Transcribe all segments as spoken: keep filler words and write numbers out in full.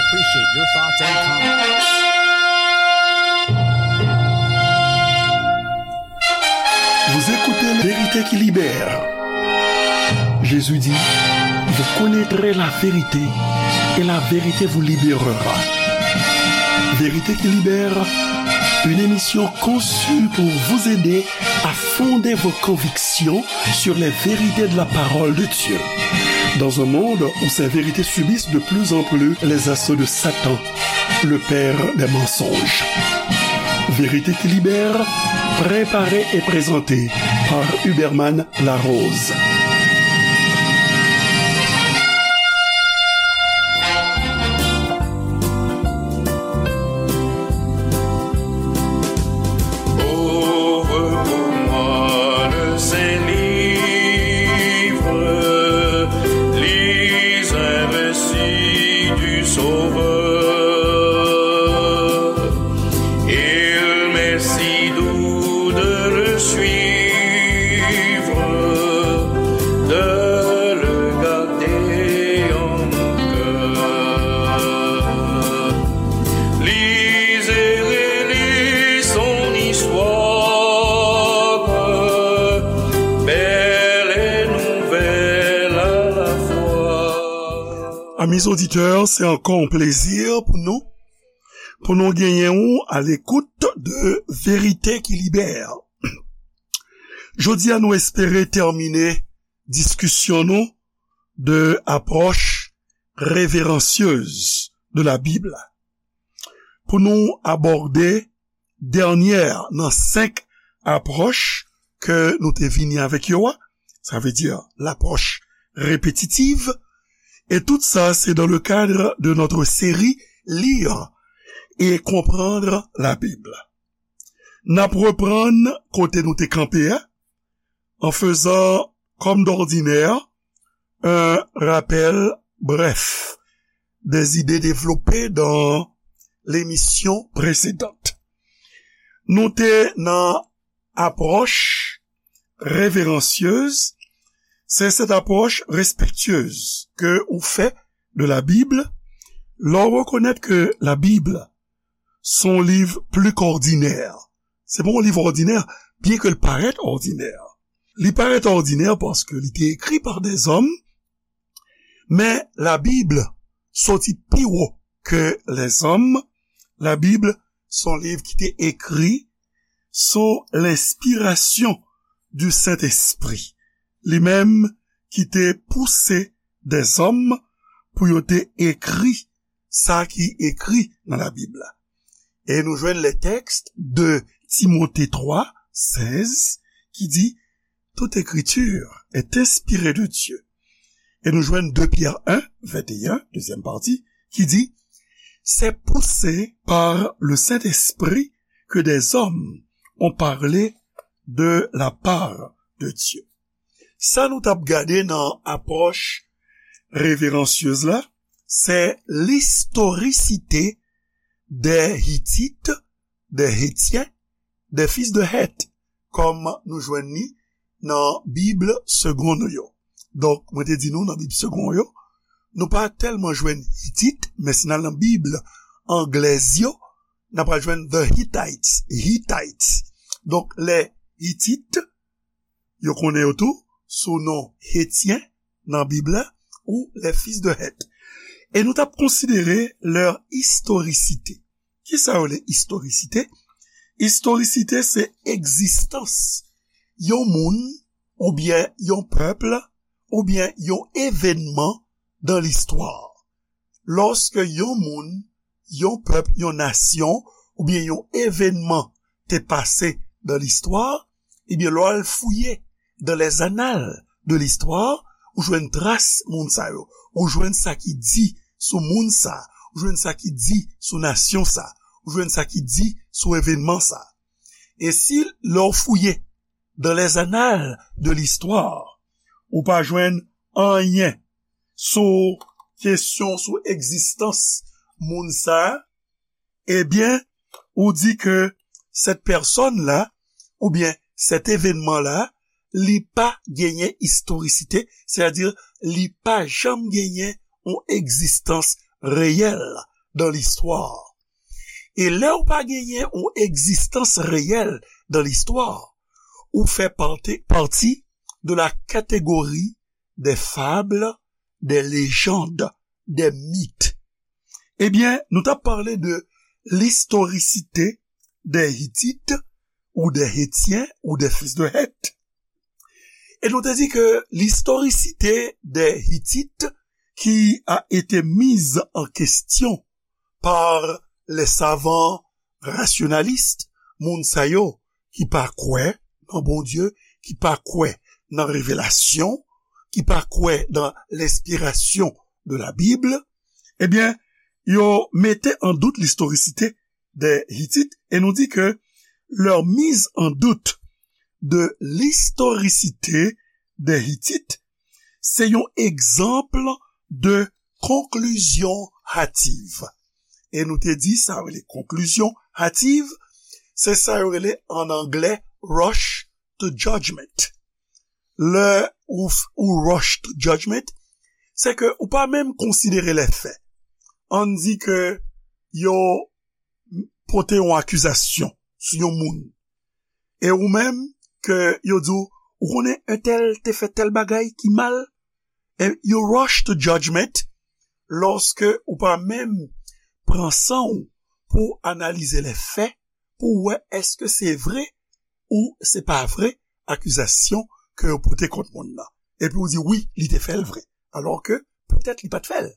Appreciate your thoughts and comments. Vous écoutez Vérité qui libère. Jésus dit, vous connaîtrez la vérité et la vérité vous libérera. Vérité qui libère, une émission conçue pour vous aider à fonder vos convictions sur les vérités de la parole de Dieu. Dans un monde où ces vérités subissent de plus en plus les assauts de Satan, le père des mensonges. Vérité qui libère, préparée et présentée par Huberman Larose. Ouvre pour moi le Saint-Livre, lis un récit du Sauveur. Il m'est si doux de le suivre, de le garder en mon cœur. Lis et relis son histoire, belle et nouvelle à la fois. Amis auditeurs, c'est encore un plaisir pour nous, pour nous gagner à l'écoute de Vérité qui libère. Jodi a nou espere tèmine diskisyon nou de apwòch reveransyez de la Bib la. Pou nou abòde dènyè nan senk apwòch ke nou te vini avèk yo a, sa vle di lapwòch répétitive, et tout ça c'est dans le cadre de notre série Lire et comprendre la Bible. N ap reprann kote nou te kanpe a, en faisant, comme d'ordinaire, un rappel bref des idées développées dans l'émission précédente. Nou te nan apwòch reveransyez, c'est cette approche respectueuse que ou fè de la Bible, lè w rekonèt ke la Bib se yon liv pli k òdinè. Se pa yon liv òdinè, byen ke l parèt òdinè. Li parèt òdinè paske li te ekri pa dèzòm, men la Bib soti pi wo ke lèzòm. La Bib se yon liv ki te ekri sou lenspirasyon di Sentespri, li menm ki te pouse dèzòm pou yo te ekri sa ki ekri nan Labib la. E nou jwenn le texte de Timote twa, sèz, ki di, toute écriture est inspirée de Dieu. E nou jwenn de Pyè en, venteyen, dezyèm pati, ki di, c'est poussé par le Saint-Esprit que des hommes ont parlé de la part de Dieu. Sa nou t ap gade nan apwòch reveransyez la, se l'historicité des Hittites, des Hétiens, des fils de Heth, kòm nou jwenn li nan Bib segon nou yo. Donk, mwen te di nou nan Bib segon yo, nou pa tèlman jwenn Hitit, men si n al nan Bib anglèz yo, n ap jwenn the Hittites, Hittites. Donk, les Hittites, yo konnen yo tou sou non Hetyen nan Bib la, ou les fils de Heth. E nou t ap konsidere leur historicité. Kisa yo rele istorisite? Istorisite se egzistans yon moun, oubyen yon pèp, oubyen yon evènman dan listwa. Lòske yon moun, yon pèp, yon nasyon, oubyen yon evènman te pase dan listwa, ebyen, lè w al fouye dans les annales de l'histoire, ou jwenn tras moun sa yo, ou jwenn sa ki di sou moun sa, ou jwenn sa ki di sou nasyon sa, ou jwenn sa ki di sou evènman sa. E si lè w fouye dans les annales de l'histoire, ou pa jwenn anyen sou kesyon, sou egzistans moun sa, ebyen, ou di ke cette personne-là, oubyen cet événement-là, li pa genyen istorisite, sètadi li pa janm genyen yon egzistans reyèl dans l'histoire. E lè ou pa genyen yon egzistans reyèl dans l'histoire, ou fè pati, pati de la catégorie des fables, des légendes, des mythes. Ebyen, nou t ap pale de l'historicité des Hittites ou des Hétiens ou des fils de Heth. Et nous te dit que l'historicité des Hittites qui a été mise en question par les savants rationalistes, moun sa yo ki pa kwè nan Bondye, ki pa kwè nan revelasyon, ki pa kwè dans l'inspiration de la Bible, ebyen, yo mete an dout l'historicité des Hittites, et nous dit que leur mise en doute de l'historicité des Hittites, se yon egzanp de conclusion hâtive. E nou te di sa yo rele conclusion hâtive, se sa yo rele an anglè rush to judgment. Lè ou, ou rush to judgment, se ke ou pa menm konsidere lè fè. Ann di ke yo pote yon akizasyon sou yon moun. E ou menm, ke yo di w, ou konnen entèl te fè tèl bagay ki mal, e you rush to judgment lòske ou pa menm pran san w pou analize lè fè, pou w wè èske se vre ou se pa vre akizasyon ke yo pote kont moun nan. Epi ou di, wi, li te fè l vre. Alòske, petèt li pa t fè l.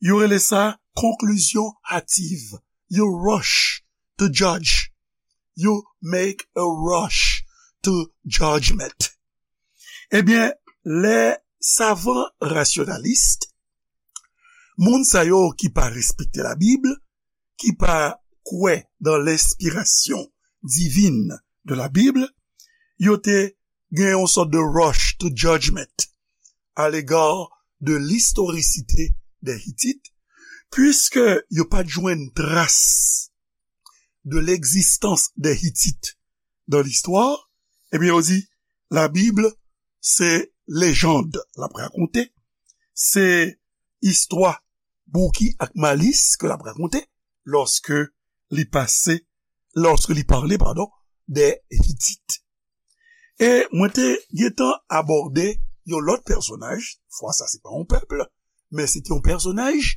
Yo rele sa conclusion hâtive. You rush to judge. You make a rush to judgment. Ebyen, lè savan rasyonalis, moun sa yo ki pa respekte Labib, ki pa kwè dans l'inspiration divine de la Bible, yo te gen yon sòt de rush to judgment à l'égard de l'historicité des Hittites, puisque yo pa t jwenn tras de l'existence des Hittites dans l'histoire, ebyen, yo di, Labib, se lejand l ap rakonte, se istwa bouki ak malis ke l ap rakonte lòske li pase, lòske li pale, padon, des Hittites. E mwen te gentan abòde yon lòt pèsonaj, fwa sa se pa yon pèp, men se te yon pèsonaj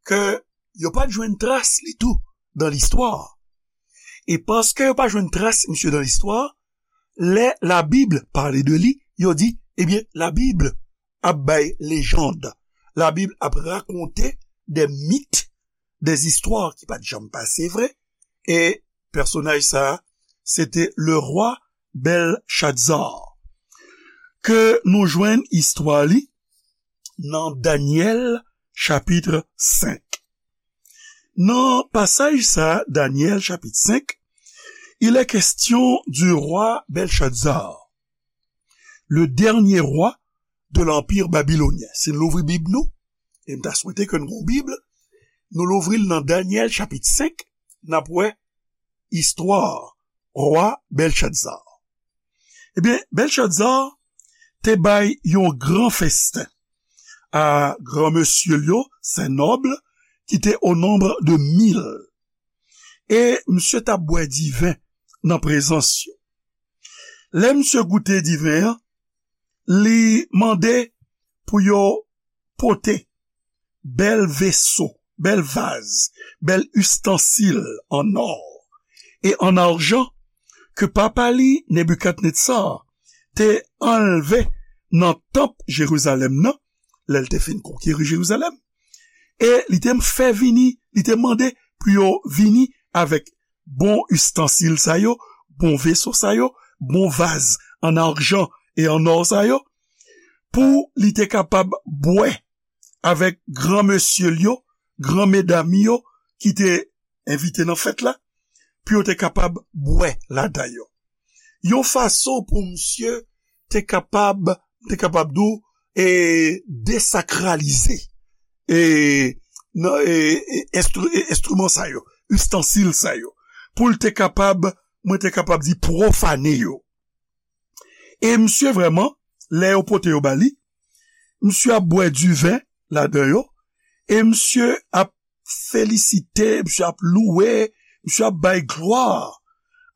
ke yo pa t jwenn tras li tou dans l'histoire. E paske yo pa jwenn tras misye dans l'histoire, lè Labib pale de li, yo di, ebyen, Labib ap bay lejand. Labib ap rakonte des mythes, des histoires ki pa t janm pase vre. E pèsonaj sa a, se te le roi Belshazzar. Ke nou jwenn istwa li nan Danyèl chapit senk. Nan pasaj sa a, Danyèl chapit senk, il est question du roi Belshazzar, le dernier roi de l'empire babylonien. Si n louvri Bib nou, e m ta swete ke n gon Bib, nou louvri l nan Danyèl chapit senk, n ap wè istwa rwa Belshazzar. Ebyen, Belshazzar te bay yon gran festen a granmesye l yo, ses nobles, ki te au nombre de mille. E misye t ap bwè diven nan prezans yo. Lè misye goute diven an, li mande pou yo pote bèl veso, bèl vaz, bèl istansil an nò e an ajan ke papa li, Nebikadnetsa, te anlve nan tanp Jerizalèm nan, lè l te fin konkeri Jerizalèm. E li te fè vini, li te mande pou yo vini avèk bon istansil sa yo, bon veso sa yo, bon vaz an ajan e an nò sa yo, pou li te kapab bwè avèk granmesye l yo, gran medam yo ki te envite nan fèt la, pou yo te kapab bwè ladan yo. Yon fason pou misye te kapab, te kapab di w, e, desakralize, e, nan, e, e, enstri-, e, enstriman sa yo, istansil sa yo, pou l te kapab, mwen te kapab di pwofane yo. E misye vrèman, lè yo pote yo ba li, misye ap bwè diven ladan yo, e misye ap felisite, misye ap louwe, misye ap bay glwa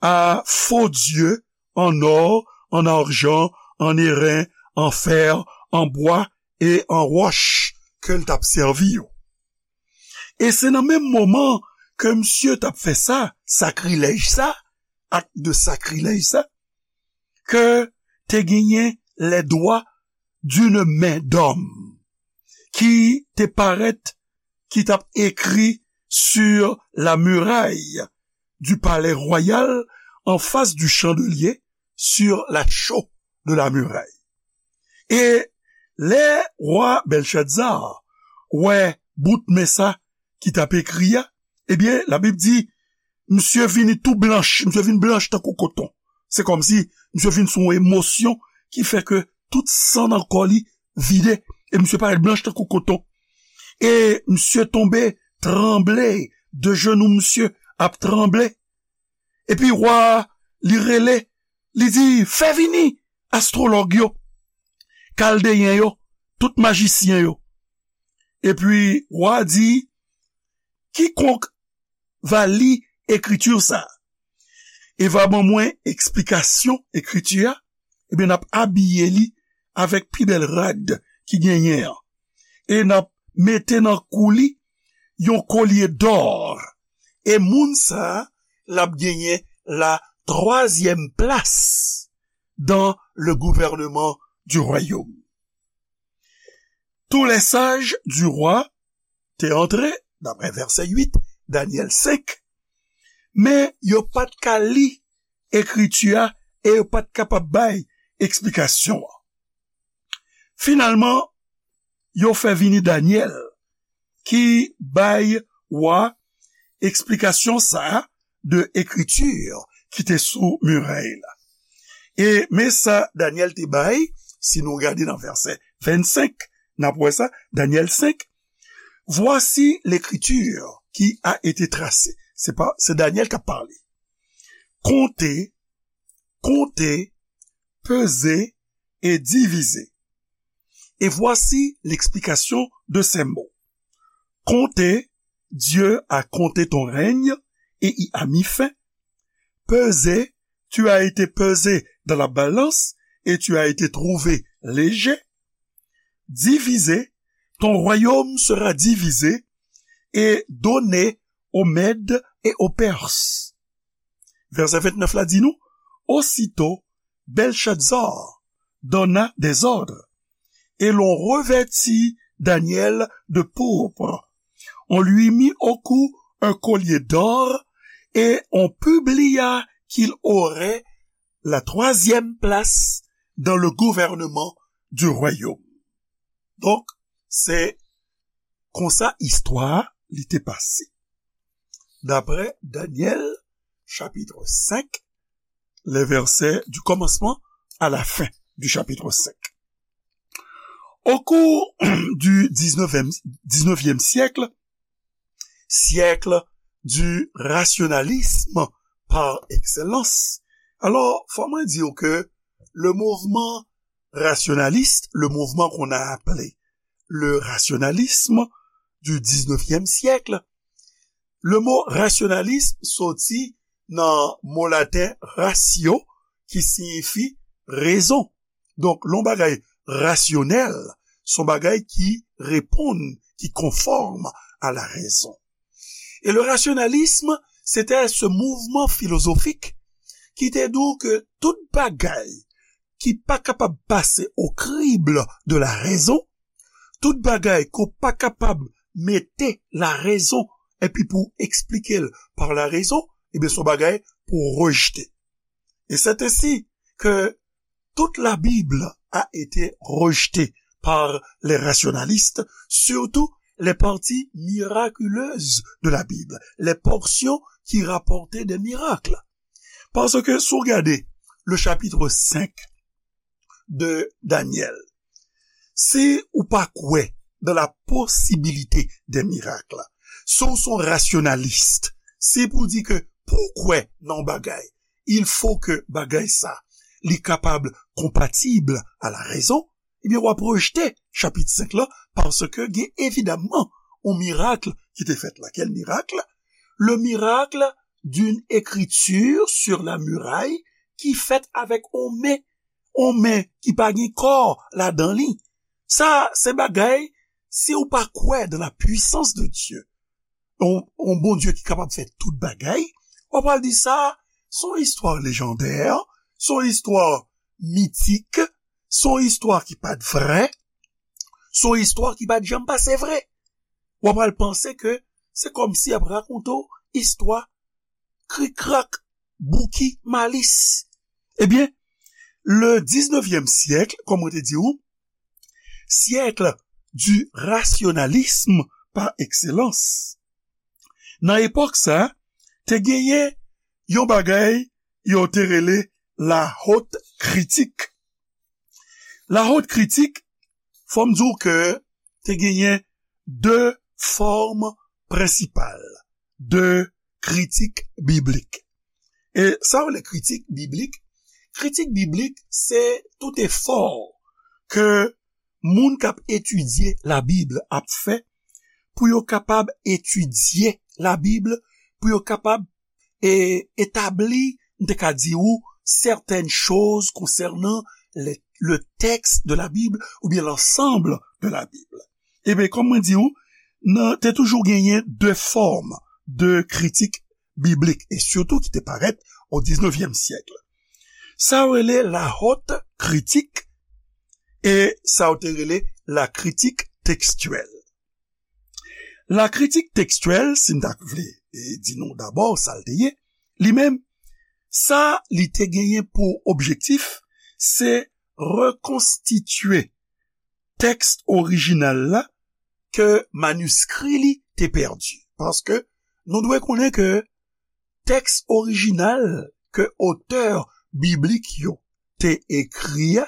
a fo dye an nò, an ajan, an eren, an fè, an bwa e an wòch ke l t ap sèvi yo. E se nan menm moman ke misye t ap fè sa, sakrilèj sa, ak de sakrilèj sa, ke te genyen les doigts d'une main d'homme ki te parèt, ki t ap ekri sur la muraille du palais royal, en face du chandelier, sur la chaux de la muraille. E lè wa Bèlchaza wè bout men sa ki t ap ekri a, ebyen, Labib di, misye vini tou blanch, misye vin blanch tankou koton. Se kòmsi misye vin sou yon emosyon ki fè ke tout san nan kò li vide, e misye parèt blanch tankou koton. E misye tonbe, tranble, de jenou misye ap tranble. Epi wa a, li rele, li di, fè vini astwològ yo, kaldeyen yo, tout majisyen yo. Epi wa a di, kikonk va li ekriti sa a e va ban mwen eksplikasyon ekriti a, ebyen, n ap abiye li avèk pi bèl rad ki genyen an. E n ap mete nan kou li yon kolye dò. E moun sa a, l ap genyen la twazyèm plas dans le gouvernement du royaume. Tous les sages du roi te antre, daprè vèsè uit, Danyèl senk, men yo pa t ka li ekriti a e yo pa t kapab bay eksplikasyon an. Finalman, yo fè vini Danyèl ki bay wa eksplikasyon sa a de ekriti ki te sou mirèy la. E men sa Danyèl te bay, si nou gade nan vèsè vennsenk, n ap wè sa, Danyèl senk, voici l'écriture qui a été tracée. Se pa, se Danyèl k ap pale. Comptez, comptez, pesez et divisez. Et voici l'explication de ces mots. Comptez, Dieu a compté ton règne et y a mis fin. Pesez, tu as été pesé dans la balance et tu as été trouvé léger. Divisez, ton royaume sera divisé et donné aux Mèdes et aux Perses. Vèsè vennèf la di nou, aussitôt Belshazzar donna des ordres, et l'on revêtit Daniel de pourpre. On lui mit au cou un collier d'or, et on publia qu'il aurait la troisième place dans le gouvernement du royaume. Donk, se konsa istwa a li te pase. Daprè Danyèl, chapitre cinq, les versets du commencement à la fin du chapitre cinq. Au cours du dix-neuvième, dix-neuvième siècle, siècle du rationalisme par excellence, alors, faut moi dire que le mouvement rationaliste, le mouvement qu'on a appelé le rationalisme du dix-neuvième siècle, le mot rationalisme sorti dans le mot latin ratio, qui signifie raison. Donk, lè yon bagay rasyonèl, se yon bagay ki reponn, ki konfòm a la rezon. E le rationalisme, c'était ce mouvement philosophique ki te di w ke tout bagay ki pa kapab pase au crible de la raison, tout bagay ke w pa kapab mete la rezon epi pou w eksplike l par la rezon, ebyen, se yon bagay pou w rejte. Et c'est ainsi que toute la Bible a été rejetée par les rationalistes, surtout les parties miraculeuses de la Bible, les portions qui rapportaient des miracles. Parce que si w gade le chapitre cinq de Daniel, si ou pa kwè dans la possibilité des miracles, si w se yon rasyonalis, si pou di ke pou w kwè nan yon bagay, il faut que bagay sa, li kapab konpatib a la rezon, ebyen, w ap rejte chapit senk la, paske gen evidaman yon mirak ki te fèt la. Quel miracle? Le miracle d'une écriture sur la muraille ki fèt avèk on men, on men ki pa gen kò ladan li. Sa se bagay, si ou pa kwè dans la puissance de Dieu, on, on Bondye ki kapab fè tout bagay, w ap pral di sa, se on istwa lejandè, se on istwa mitik, se on istwa ki pa t vrè, se on istwa ki pa t janm pase vre. W ap pral panse ke se kòmsi y ap rakonte w istwa krikrak, bouki, malis. Ebyen, le diznevyèm syèk, kòm mwen te di w, siècle du rationalisme par excellence. Nan epòk sa, te genyen yon bagay yo te rele la haute critique. La haute critique, fò m di w ke te genyen de fòm prensipal de kritik biblik. E sa yo rele kritik biblik? Kritik biblik, se tout efò ke moun k ap etidye Labib ap fè pou yo kapab etidye Labib, pou yo kapab e, etabli, m te ka di w, certaines choses concernant le, le texte de la Bible ou bien l'ensemble de la Bible. Ebyen, kòm mwen di w, nan, te toujou genyen de fòm de kritik biblik, e sitou ki te parèt o diznevyèm syèk. Sa yo rele la haute critique e sa yo te rele la critique textuelle. La critique textuelle, si m ta vle e, di nou dabò sa l te ye, li menm, sa li te genyen pou objektif, se rekonstitye tèks orijinal la ke maniskri li te pèdi. Paske nou dwe konnen ke tèks orijinal ke otè biblik yo te ekri a,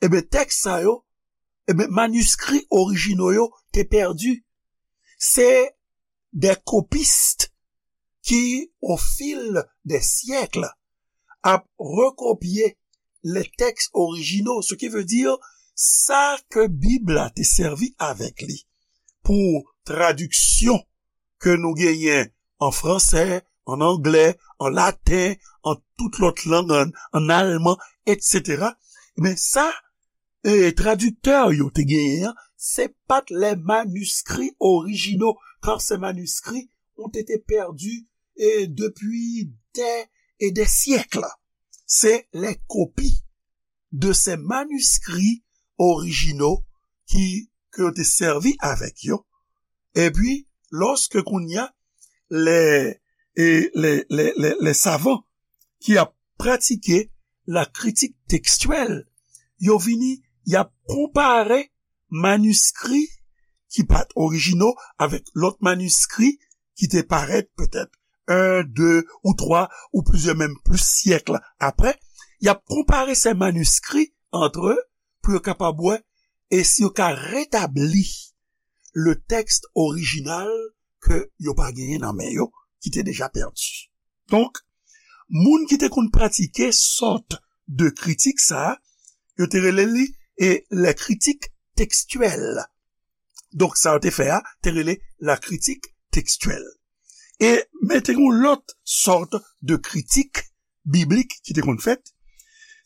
ebyen, tèks sa yo, ebyen, maniskri orijino yo te pèdi. Se des copistes qui, au fil des siècles, ap rekopye les textes originaux, ce qui veut dire sa ke Bib la te sèvi avèk li pou tradiksyon ke nou genyen an fransè, an anglè, an laten, an tout lòt lang, an, an alman, etsetera. Men sa, e, tradiktè yo te genyen an, se pa t les manuscrits originaux, car ces manuscrits ont été perdus, e, depuis des et des siècles. Se les copies de ces manuscrits originaux ki, ke yo te sèvi avèk yo. Epi, lòske kounye a, les, e, les, les, les, les savants ki ap pratike la critique textuelle, yo vini, y ap konpare maniskri ki pa t orijino avèk lòt maniskri ki te parèt petèt un, de ou twa ou plizyè, menm plis syèk apre. Y ap konpare ces manuscrits entre eux pou yo kapab wè e si yo ka retabli le texte original ke yo pa genyen nan men yo, ki te deja pèdi. Donk, moun ki te konn pratike sòt de kritik sa a, yo te rele li e les critiques textuelles. Donk, sa yo te fè a, te rele la critique textuelle. E, men te gen yon lòt sòt de kritik biblik ki te konn fèt.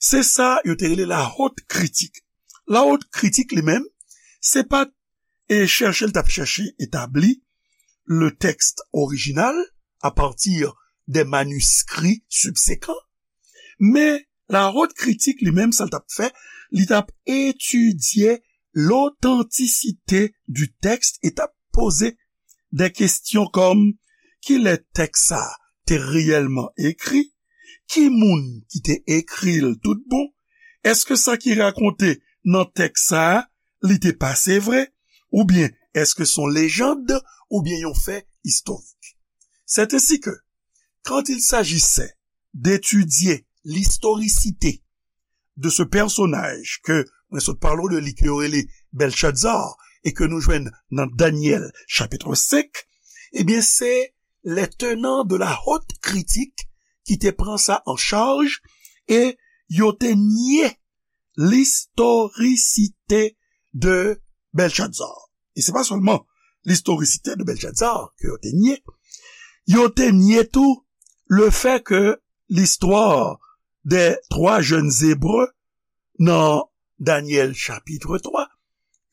Se sa yo te rele la haute critique. La haute critique li menm, se pa t e chèche, l t ap chèche etabli le texte original à partir des manuscrits subséquents. Men, la haute critique li menm, sa l t ap fè, li t ap etidye l'authenticité du texte e t ap poze de kesyon kòm, kilè tèks sa a te reyèlman ekri? Ki moun ki te ekri l tout bon? Èske sa ki rakonte nan tèks sa a, li te pase vre? Oubyen èske se yon lejand oubyen yon fè istorik? C'est ainsi que, quand il s'agissait d'étudier l'historicité de ce personnage ke mwen sot pale w de li, ke yo rele Belshazzar, e ke nou jwenn nan Danyèl chapit senk, ebyen, se les tenants de la haute critique ki te pran sa an chaj e yo te nye l'historicité de Belshazzar. E se pa sèlman l'historicité de Belshazzar, ke yo te nye, yo te nye tou le fait que l'histoire des trois jeunes Hébreux nan Daniel chapitre trois,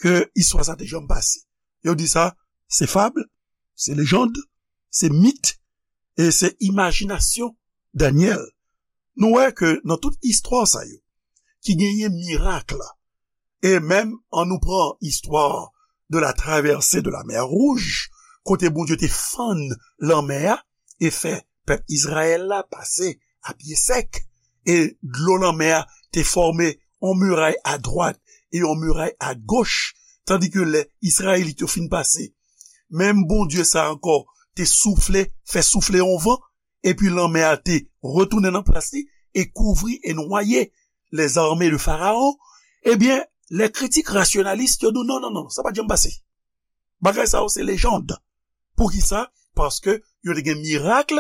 ke istwa sa te janm pase. Yo di sa, se fab, se lejand, se mit, e se imajinasyon Daniel. Nou wè ke nan tout istwa sa yo, ki genyen mirak la, e menm an nou pran istwa de la traversée de la mer Rouge, kote Bondye te fann lanmè a e fè pèp Izrayèl la pase a pye sèk, e dlo lanmè a te fòme yon miray a dwat e yon miray a goch, tandi ke lè Izrayelit yo fin pase, menm Bondye sa ankò te soufle, fè soufle yon van, epi lanmè a te retounen nan plas li e kouvri e nwaye lèzame de Farawon, ebyen, lè kritik rasyonalis yo di w, non, non, non, sa pa t janm pase. Bagay sa yo se lejand. Poukisa? Paske yo te gen mirak,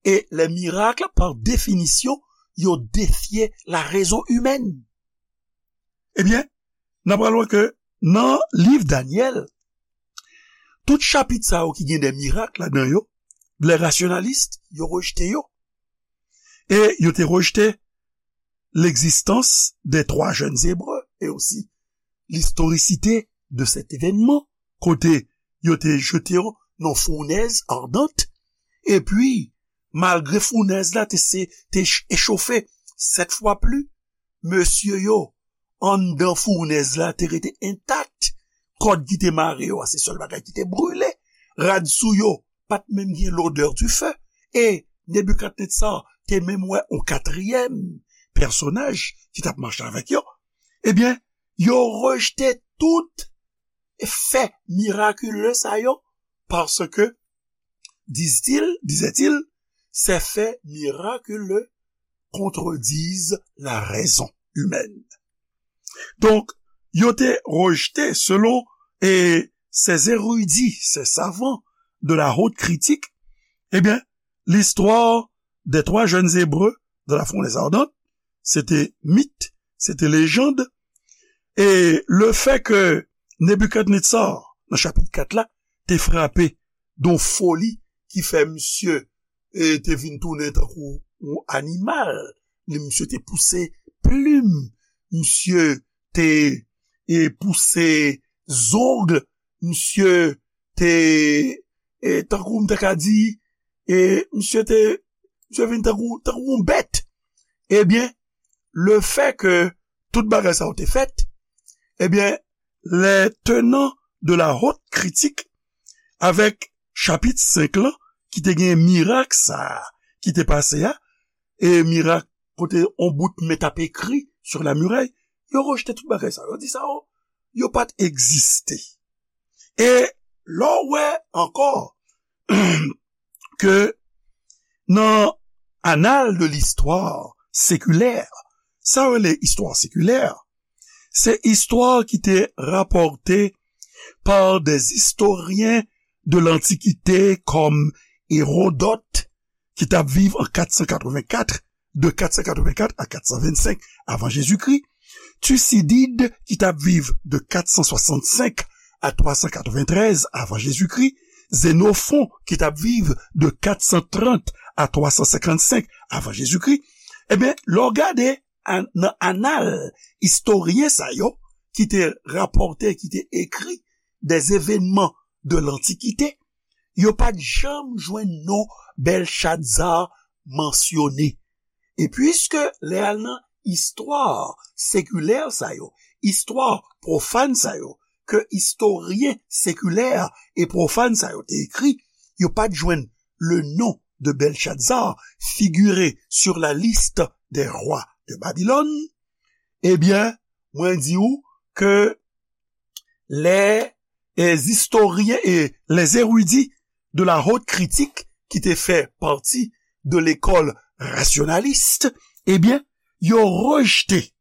e lè mirak, pa definisyon, yo defye la rezon imèn. Ebyen, n ap pral wè ke nan liv Danyèl, tout chapit sa yo ki gen de mirak ladan yo, lè rasyonalis yo rejte yo. E yo te rejte l'existence des trois jeunes Hébreux et aussi l'historicité de cet événement, kote yo te jete yo nan founèz ardant, epi, malgre founèz la te, se, te ch-, echofe sèt fwa pli, mesye yo anndan founèz la te rete entak. Kòd ki te mare yo a, se sèl bagay ki te brile. Rad sou yo pa t menm gen l'odeur du feu. E Nebikadnetsar te menm wè yon katriyèm pèsonaj ki t ap mache avèk yo. Ebyen, yo rejte tout fè mirakile sa yo, paske, disent-ils, disaient-ils, ces faits miraculeux contredisent la raison humaine. Donk, yo te rejte, selon e, ces érudits, ces savants de la haute critique, ebyen, l'histoire des trois jeunes Hébreux de la fournaise ardente, se te mit, se te lejand, e le fait que Nebikadnetsar, nan chapit kat la, te frape de yon foli ki fè misye e te vin tounen tankou yon animal. Li, misye te pouse plim, misye te e pouse zong, misye te e tankou m ta ka di, e misye te, misye vin tankou, tankou yon bèt. Ebyen, le fait que tout bagay sa yo te fèt, ebyen, les tenants de la haute critique, avèk chapit senk lan, ki te gen mirak sa a, ki te pase a, e mirak kote on bout men t ap ekri sur la muraille, yo rejte tout bagay sa. Yo di sa yo, yo pa t egziste. E lè w wè ankò ke nan annales de l'histoire séculaire, sa yo rele istwa sekilè, se istwa ki te rapòte par des historiens de l'Antiquité kòm Hérodote, ki t ap viv an kat san katrevenkat, de kat san katrevenkat a kat san vennsenk avan Jezikri, Thucydide, ki t ap viv de kat san swasannsenk a twa san katreventrèz avan Jezikri, Xénophon, ki t ap viv de kat san trant a twa san senkannsenk avan Jezikri, ebyen, lè w gade an-, nan anal istoryen sa yo ki te rapòte, ki te ekri des événements de l'Antiquité, yo pa t janm jwenn non Bèlchadza mansyone. E piske lè al nan istwa sekilè sa yo, istwa pwofàn sa yo, ke istoryen sekilè e pwofàn sa yo te ekri, yo pa t jwenn le nom de Belshazzar figuré sur la liste des rois de Babylone, ebyen, mwen di w ke les, les historiens et les érudits de la haute critique ki te fè pati de lekòl rasyonalis, ebyen, yo rejte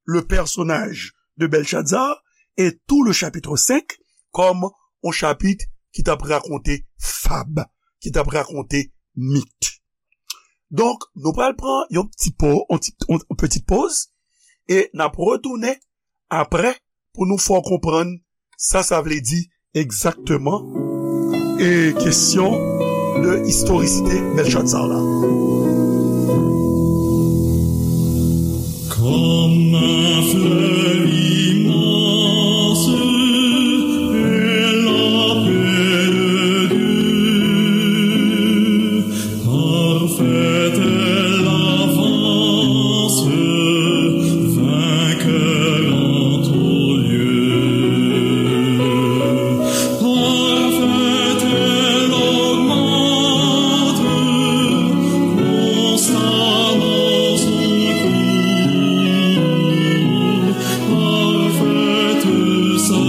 le personnage de Belshazzar et tout le chapitre cinq comme un chapitre ki t ap rakonte fab, ki t ap rakonte mit. Donk, nou pral pran yon ti po, yon ti, yon, yon petit pause e n ap retounen apre pou nou fè w konprann sa sa vle di egzakteman E kesyon de istorisite Bèlchatsar la. Comme un fleuve immense est la paix de Dieu. Parfaite est l'avance, vainqueur en tout lieu. Parfaite est l'augmenter, constamment secours. Parfaite sa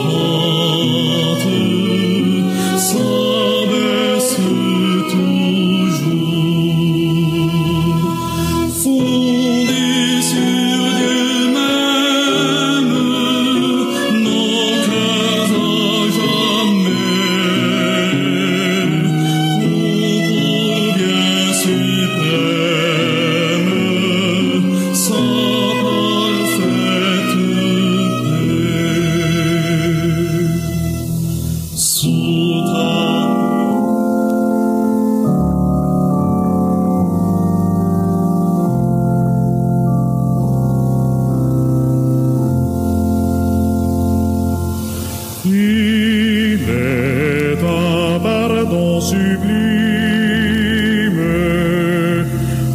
pente, sa baisse toujours. Fondée sur Dieu même, nos cœurs à jamais ont pour bien suprême sa parfaite paix. Sous ta Il est un pardon sublime,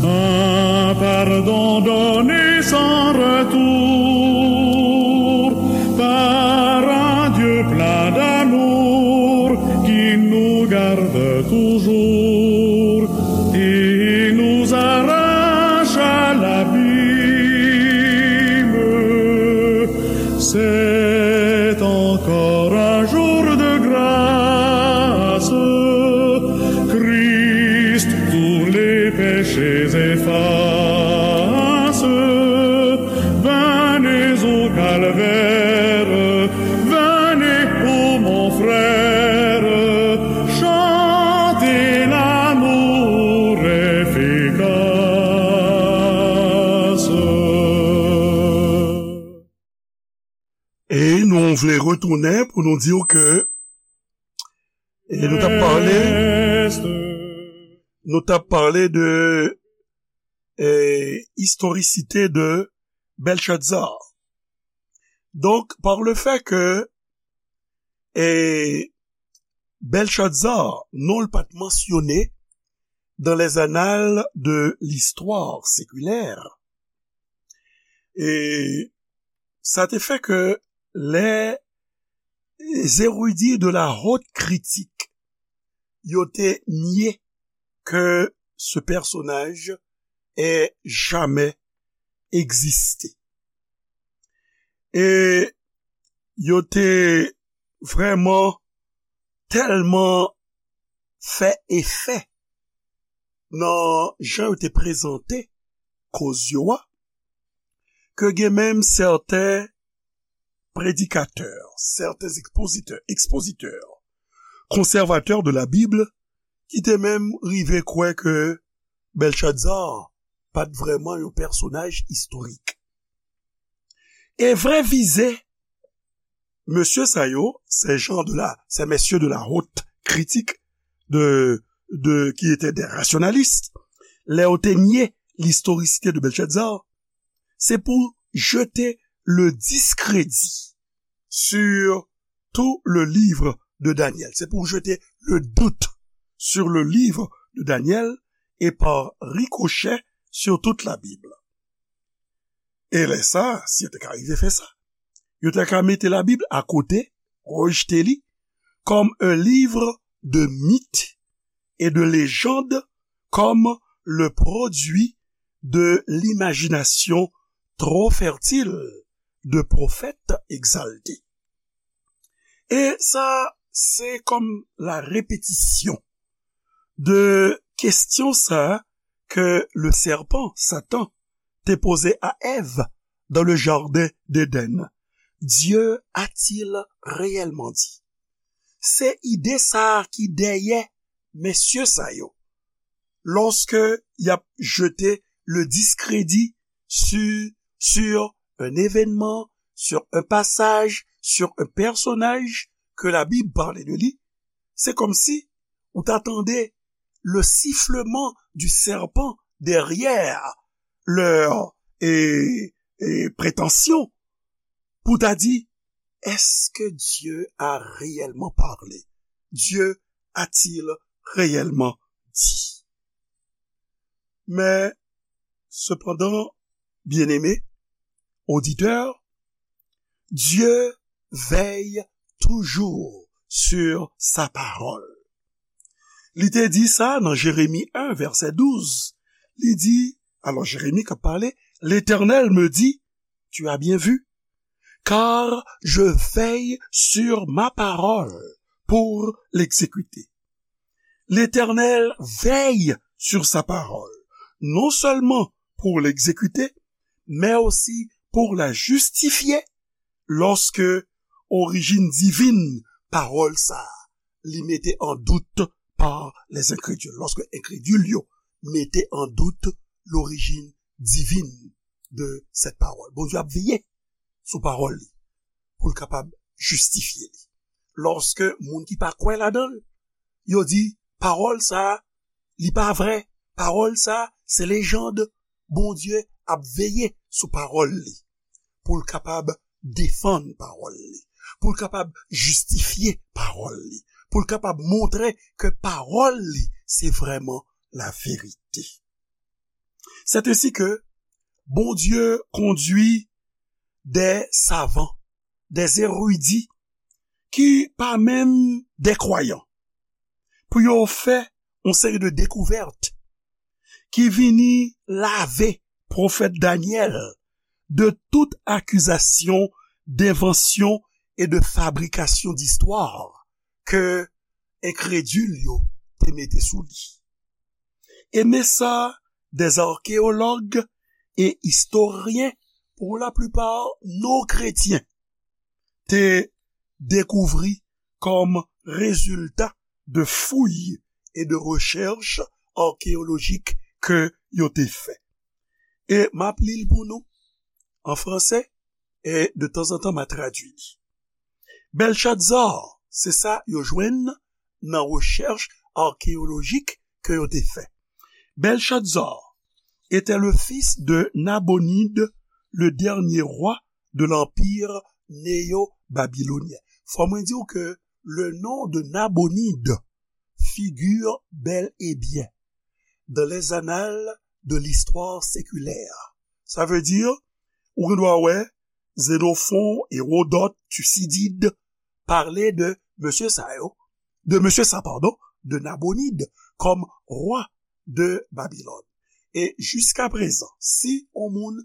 un pardon donné sans retour par un Dieu plein d'amour qui nous garde toujours et nous arrache à l'abîme. C'est encore un jour de grâce. Christ tous les péchés efface. Venez au calvaire, venez, ô mon frère, chantez l'amour efficace. E nou vle retounen pou nou di w ke, e nou t ap pale, nou t ap pale de, e, istorisite de Bèlchatsar. Donk, par le fait que, e, Bèlchatsar, non l pa t mansyone dans les annales de l'histoire séculaire, e sa te fè ke les érudits de la haute critique, yo te nye ke ce personnage ait jamais existé. E yo te vrèman tèlman fè efè nan jan yo te prezante koz yo a, ke gen menm sèten predikatè, sèten ekspozitè, ekspozitè, konsèvatè de la Bib, ki te menm rive kwè ke Bèlchatsar pa t vrèman yon pèsonaj istorik. E vrè vize mesye sa yo, ces gens de la, ces messieurs de la haute critique de, de, qui étaient des rationalistes, lè yo te nye l'historicité de Belshazzar, se pou jete le discrédit sur tout le livre de Daniel. Se pou jete le doute sur le livre de Daniel et par ricochet sur toute la Bible. E lè sa, si yo te ka rive fè sa, yo te ka mete Labib akote, rejte li, comme un livre de mythes et de légendes, comme le produit de l'imagination trop fertile de prophètes exaltés. E sa, se kòm la répétition de kesyon sa ke le serpent, Satan, te poze a Èv dans le jardin d'Éden. Dieu a-t-il réellement dit? Se ide sa a ki dèyè mesye sa yo. Lorsque y ap jete le discrédit sur, sur un événement, sur un passage, sur un personnage que la Bible parle de lui, c'est comme si ou ta tande le sifflement du serpent derrière leur, et, et prétention pou ta di, est-ce que Dieu a réellement parlé? Dieu a-t-il réellement dit? Mais, cependant, bien-aimés auditeurs, Dieu veille toujours sur sa parole. Li te di sa nan Jeremi en, vèsè douz. Li di, alò Jeremi k ap pale, L'Éternel me dit, tu as bien vu, car je veille sur ma parole pour l'exécuter. L'Éternel veille sur sa parole, non seulement pour l'exécuter, mais aussi pour la justifier lorsque origine divine parole sa, li mete en doute par les incrédules. Lorsque incrédules yo mete en doute l'origine divine de cette parole. Bondye ap veye sou pawòl li pou l kapab jistifye li. Lòske moun ki pa kwè ladan l, yo di, pawòl sa a, li pa vrè, pawòl sa a, se lejand, Bondye ap veye sou pawòl li pou l kapab defann pawòl li, pou l kapab jistifye pawòl li, pou l kapab montre ke pawòl li se vrèman laverite. C'est ainsi que Bondye kondwi des savants, des érudits ki pa menm des croyants pou yo fè yon seri de dekouvèt ki vini lave pwofèt Danyèl de tout akizasyon d'invention et de fabrication d'histoire ke enkredil yo te mete sou li. E men sa, des archéologues et historiens, pour la plupart non chrétiens, te dekouvri kòm rezilta de fouy e de rechèch akeyolojik ke yo te fè. E m ap li l pou nou an fransè, e de tanzantan m a tradui li. Belshazzar, se sa yo jwenn nan rechèch akeyolojik ke yo te fè. Belshazzar était le fils de Nabonide, le dernier roi de l'empire néo-babylonien. Fò mwen di w ke le nom de Nabonide figure bel et bien dans les annales de l'histoire séculaire. Sa vle di, ou gen dwa wè Xénophon, Hérodote, Thucydide pale de mesye sa yo, de mesye sa, padon, de Nabonide kòm rwa de Babilòn. E jiska prezan, si yon moun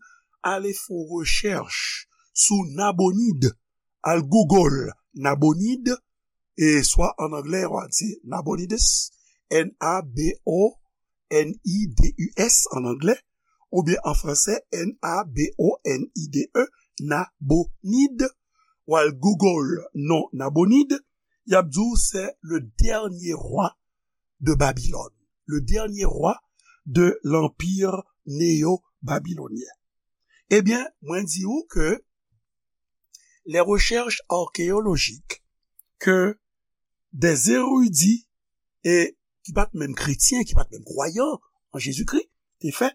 ale fè yon rechèch sou Nabonide, al Google Nabonide, e swa an anglè, w a di Nabonidus, N A B O N I D U S an anglè, oubyen an fransè, N A B O N I D E, Nabonide, w al Google non Nabonide, y ap di w se le dernier roi de Babylone, le dernier roi de l'empire néo-babylonien. Ebyen, mwen di w ke les recherches archéologiques que des érudits, e ki pa t menm kretyen, ki pa t menm kwayan an Jezikri, te fè,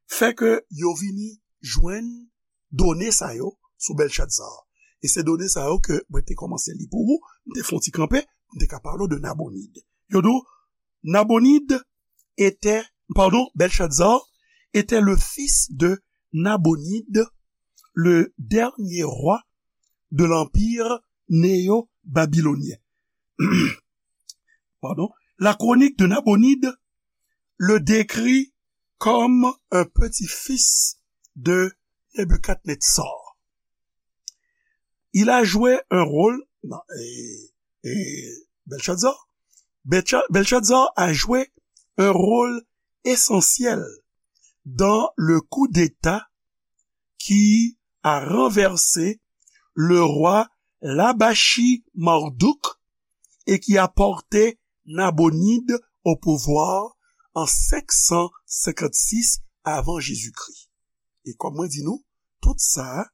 fè ke yo vini jwenn done sa yo sou Belshazzar. E se done sa yo ke mwen te kòmanse li pou ou, m te fè yon ti kanpe, m te ka pale w de Nabonide. Yo di w, Nabonide était, pardon, Belshazzar était le fils de Nabonide, le dernier roi de l'empire néo-babylonien. Pardon. La chronique de Nabonide le décrit comme un petit-fils de Nebuchadnezzar. Il a joué un rôle, non, et, et Belshazzar, Belsha- Belshazzar a joué un rôle essentiel dans le coup d'État qui a renversé le roi Labashi Marduk et qui a porté Nabonide au pouvoir en cinq cent cinquante-six avant Jésus-Christ. E kòm mwen di nou, tout sa,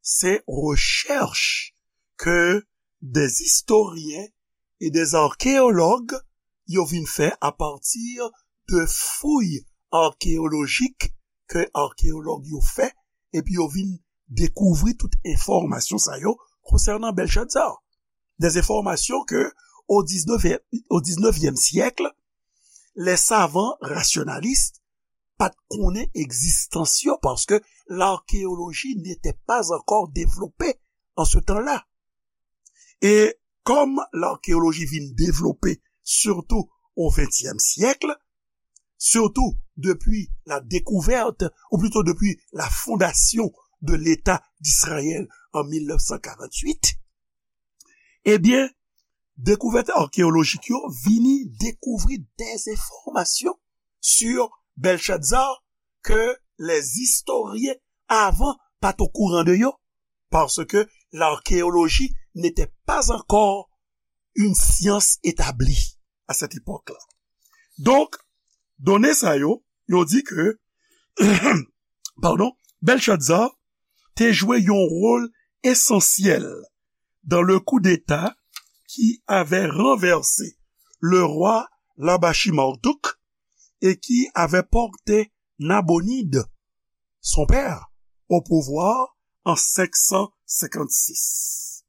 se rechèch ke des historiens e dè arkéològ yo vin fè apati de fouy arkéolojik ke arkéològ yo fè, epi yo vin dekouvri tout enfòmasyon sa yo konsènan Bèlchatzar. Des enfòmasyon ke o diznèf, o diznèvyèm syèk, lè savan rasyonalis pa t konnen egzistans yo, paske l'archéologie n'était pas encore développée en ce temps-là. E kòm l'archéologie vin devlope sitou o ventyèm syèk, sitou depi la découverte, ou plutôt depuis la fondation de l'État d'Israël en mil nèf san karant uit, ebyen, dekouvèt arkéolojik yo vini dekouvri des enfòmasyon sur Belshazzar ke les historiens avan pa t okouran de yo, parce que l'archéologie n'était pas encore une science établie à cette époque-là. Donk, done sa yo, yo di ke, pardon, Belshazzar te jwe yon wòl esansyèl dans le coup d'État qui avait renversé le roi Labashi Marduk et qui avait porté Nabonide, son père, au pouvoir en senk san senkannsis.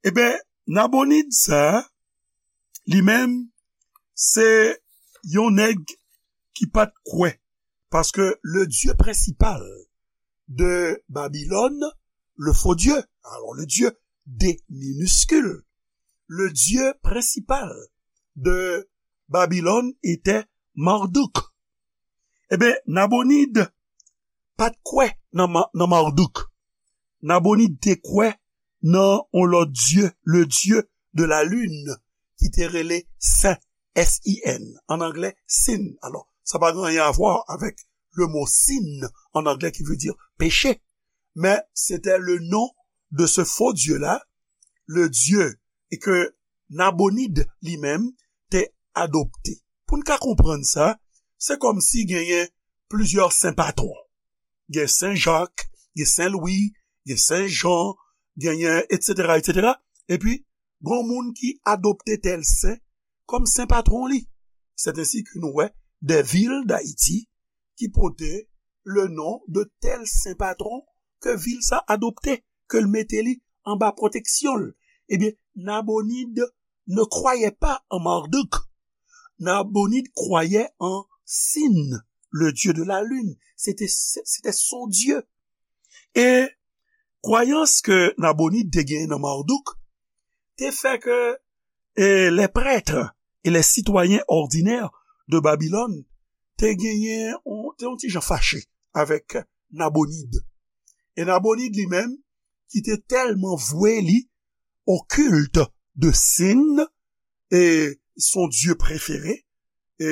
Eben, Nabonid sa, li menm, se yon nèg ki pa t kwè, paske le dieu principal de Babylone, le faux Dieu, alors le Dieu D minuscule, le dieu principal de Babylone était Marduk. Eben, Nabonid pa t kwè nan Ma-, nan Marduk. Nabonid te kwè nan yon lòt dieu, le dieu de la lune, ki te rele Sin, S I N, an anglè, Sin. Alò, sa pa gen anyen a vwa avèk le mo sin an anglè ki vle di peche, men se te le non de ce faux dieu-là, le dieu, e ke Nabonid li menm te adopte. Pou n ka konprann sa, se kòmsi genyen plizyè sen patwon. Gen Sen Jak, gen Sen Lwi, gen Sen Jan, genyen, etsetera, etsetera. Epi, gen moun ki adopte tèl sen kòm sen patwon li. C'est ainsi que nou wè des villes d'Haïti ki pote le non de tèl sen patwon ke vil sa adopte, ke l mete li anba pwoteksyon l. Ebyen, Nabonid ne croyait pas en Marduk. Nabonid croyait en Sin, le dieu de la lune. C'était, c'était son dieu. E kwayans ke Nabonid te genyen nan Marduk te fè ke, e, les prêtres et les citoyens ordinaires de Babylone te genyen, on, te yon ti jan fache avèk Nabonid. E Nabonid li menm, ki te tèlman vwe li au culte de Sin, e son dieu préféré, e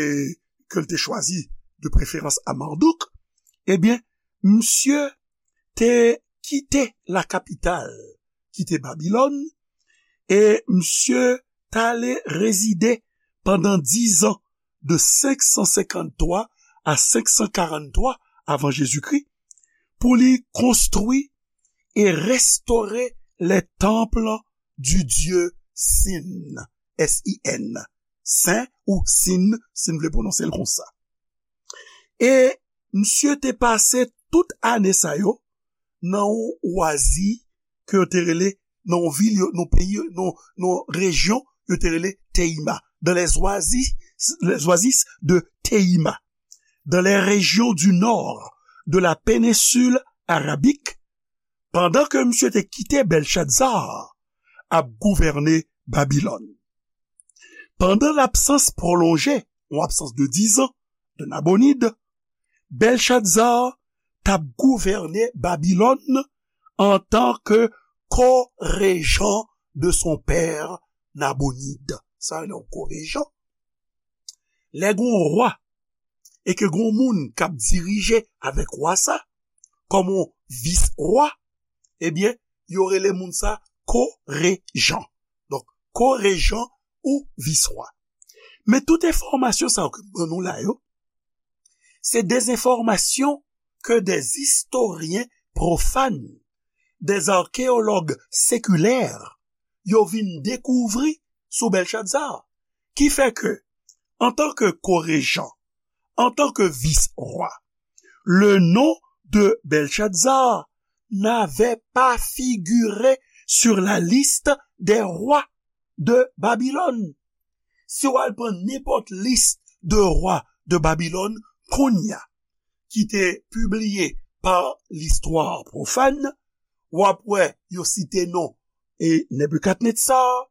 ke l te chwazi de préférence à Marduk, ebyen, misye te kite la kapital, kite Babilòn, e misye t ale rezide pandan diz an, de senk san senkanntwa a senk san karanntwa avan Jezikri, pou li konstwi e restore les temples du dieu Sin, S I N, Sen ou Sin, si n vle pwononse l konsa. E misye te pase tout ane sa yo nan yon wazi ke yo te rele, nan yon vil, yo, nan yon peyi, nan, nan yon rejyon, yo te rele Teima. Dans les oasis, les oasis de Teima. Dans les régions du nord de la péninsule arabique, pandan ke misye te kite Belshazzar ap gouvène Babilòn. Pandan labsans pwolonje, yon absans de diz an, de Nabonid, Belshazzar t ap gouvène Babilòn antanke ko-rejan de son père Nabonid. Sa rele yon ko-rejan. Lè gen yon wa e ke gen yon moun k ap dirije avèk wa sa, kòm yon vis-wa, ebyen, yo rele moun sa ko-rejan. Donk, ko-rejan ou vis-wa. Men tout enfòmasyon sa yo ke m ban nou la yo, se des enfòmasyon ke des historiens profanes, des archéologues séculaires, yo vin dekouvri sou Bèlchatzar. Ki fè ke, antanke korejan, antanke vis-rwa, le nom de Belshazzar n'avait pas figuré sur la liste des rois de Babylone. Si w al pran nenpòt lis de rwa de Babilòn kounye a, ki te pibliye pa listwa pwofàn, w ap wè yo site non e Nebikadnetsar,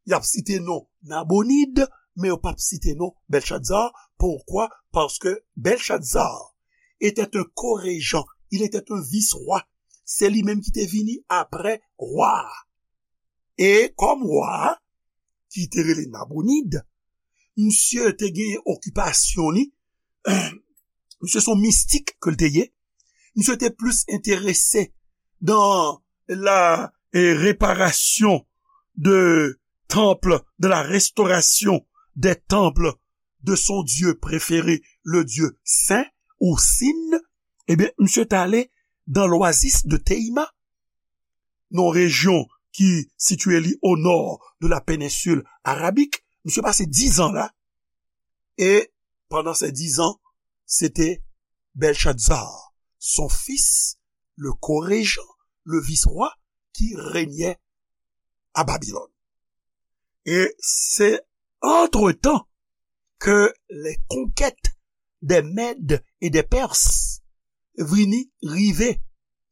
y ap site non Nabonid, men yo p ap site non Belshazzar. Poukwa? Paske Belshazzar était un co-régent, il était un vice-roi. Se li menm ki te vini apre wa a. E kòm wa a, ki te rele Nabonid, misye te gen okipasyon li, misye se yon mistik ke l te ye, misye te plis enterese dans la eh, réparation de temple, de la restauration des temples de son dieu préféré, le dieu Sin ou Sin, ebyen, misye t ale dans l'oasis de Teima, nan rejyon ki sitiye li o nò de la péninsule arabique. Misye pase dizan la, e pandan se dizan, se te Belshazzar, son fils, le co-régent, le vice-roi, qui régnait à Babylone. Et c'est entre-temps que les conquêtes des Mèdes et des Perses vini rive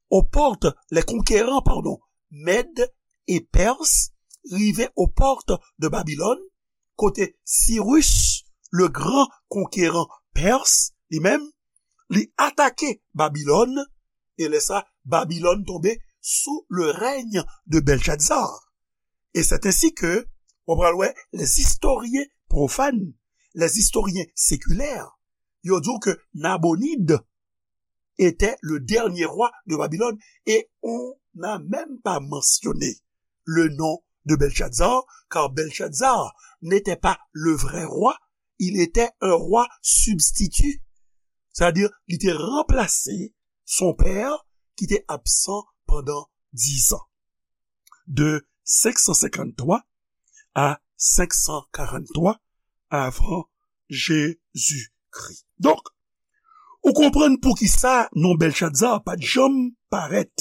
aux portes, les conquérants, pardon, Mèdes et Perses rive aux portes de Babylone, kote Cyrus, le grand conquérant perse, li menm, li atake Babilòn, e lè sa, Babilòn tonbe sou le règne de Belshazzar. Et c'est ainsi que, w pral wè, les historiens profanes, les historiens séculaires, yo di w ke Nabonid était le dernier roi de Babylone et on n'a même pas mentionné le nom de Belshazzar, car Belshazzar n'était pas le vrai roi, il était un roi substitut. C'est-à-dire, il était remplacé son père qui était absent pendant dix ans. De cinq cent cinquante-trois à cinq cent quarante-trois avant Jésus-Christ. Donk, ou konprann poukisa non Belshazzar pa t janm parèt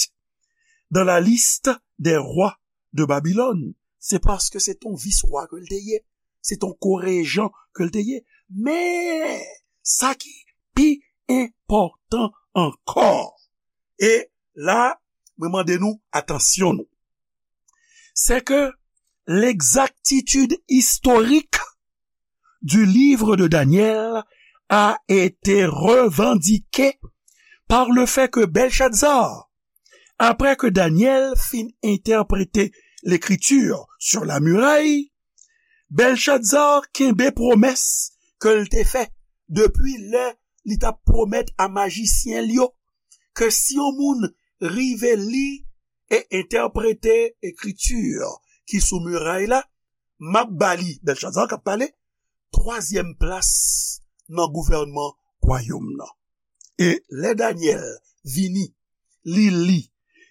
dans la liste des rois de Babylone. Se paske se t on vis-rwa ke l te ye. Se t on korejan ke l te ye. Men, sa ki pi enpòtan ankò, e la, mwen mande nou atansyon nou. C'est que l'exactitude historique du livre de Daniel a été revendiquée par le fait que Belshazzar, après que Daniel fin interprété l'écriture sur la muraille, Belshazzar kenbe pwomès ke l te fè depi lè li t ap pwomèt a majisyen l yo ke si yon moun rive li e entèprete ekriti ki sou miray la, m ap ba li, Bèlchazar k ap pale, twazyèm plas nan gouvènman wayòm nan. E lè Danyèl vini, li li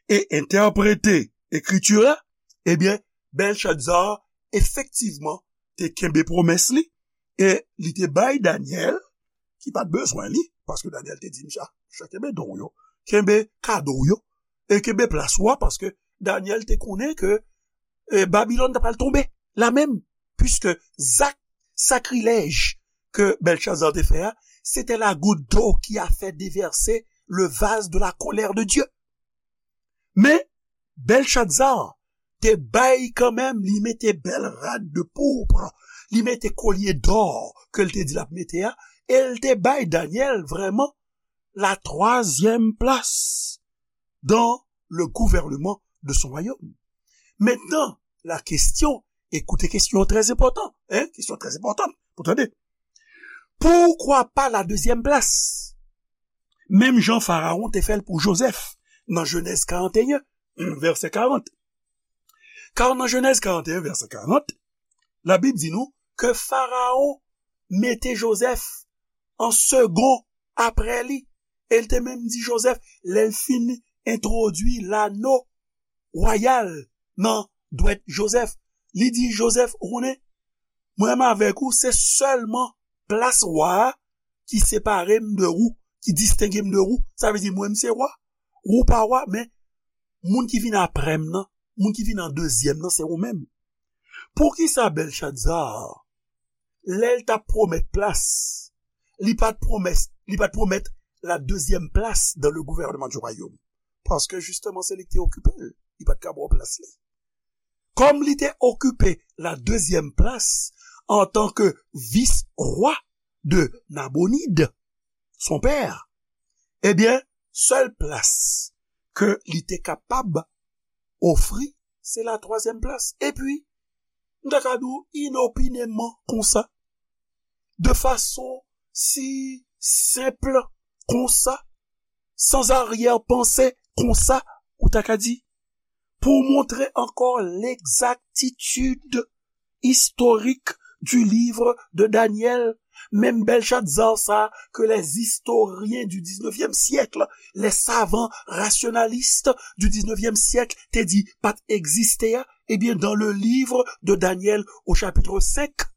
e entèprete ekriti a, ebyen, Bèlchazar efektivman te kenbe pwomès li e li te bay Danyèl, ki pa t bezwen li, paske Danyèl te di, "Misye, misye kenbe don w yo, kenbe kado w yo, e kenbe plas ou a," paske Danyèl te konnen ke e, Babilòn ta pral tonbe la menm, puiske zak sakrilèj ke Bèlchazar te fè a, c'était la goutte d'eau qui a fait déverser le vase de la colère de Dieu. Men, Bèlchazar te bay kanmenm, li mete bèl rad de pourpre, li mete kolye dò ke l te di l ap mete a, e l te bay Danyèl vrèman la twazyèm plas dans le gouvernement de son royaume. Maintenant, la question, écoutez, question très importante, hein, question très importante, pou tande. Poukwa pa la dezyèm plas? Menm jan Farawon te fè l pou Jozèf nan Jenèz karant e en, vèsè karant. Kar nan Jenèz karant e en, vèsè karant, Labib di nou ke Farawon mete Jozèf an segon apre li. E l te menm di Jozèf, lè l fin entwodui lano wayal nan dwèt Jozèf, Li di Jozèf, ou konnen, mwen menm avèk ou, se sèlman plas wa a ki separe m de ou, ki distenge m de ou. Sa vle di, mwen, m se wa, ou pa wa, men moun ki vin apre m nan, moun ki vin an dezyèm nan, se ou menm. Poukisa Bèlchadza, lè l t ap pwomèt plas, li pa t pwomès, li pa t pwomèt la deuxième place dans le gouvernement du royaume? Paske jisteman, se li ki te okipe l. Li pa t ka ba w plas li. Kòm li te okipe la deuxième place antanke vis-wa de Nabonid, son pè, ebyen, sèl plas ke li te kapab ofri, se la twazyèm plas. Epi, m ta ka di w inopineman konsa, de fason si senp konsa, san aryè panse konsa, ou ta ka di, pou montre ankò l'exactitude historique du livre de Daniel, menm Bèlchadza sa ke les historiens du dix-neuvième siècle, les savants rationalistes du dix-neuvième siècle te di pa t egziste a, ebyen, dans le livre de Daniel au chapitre cinq,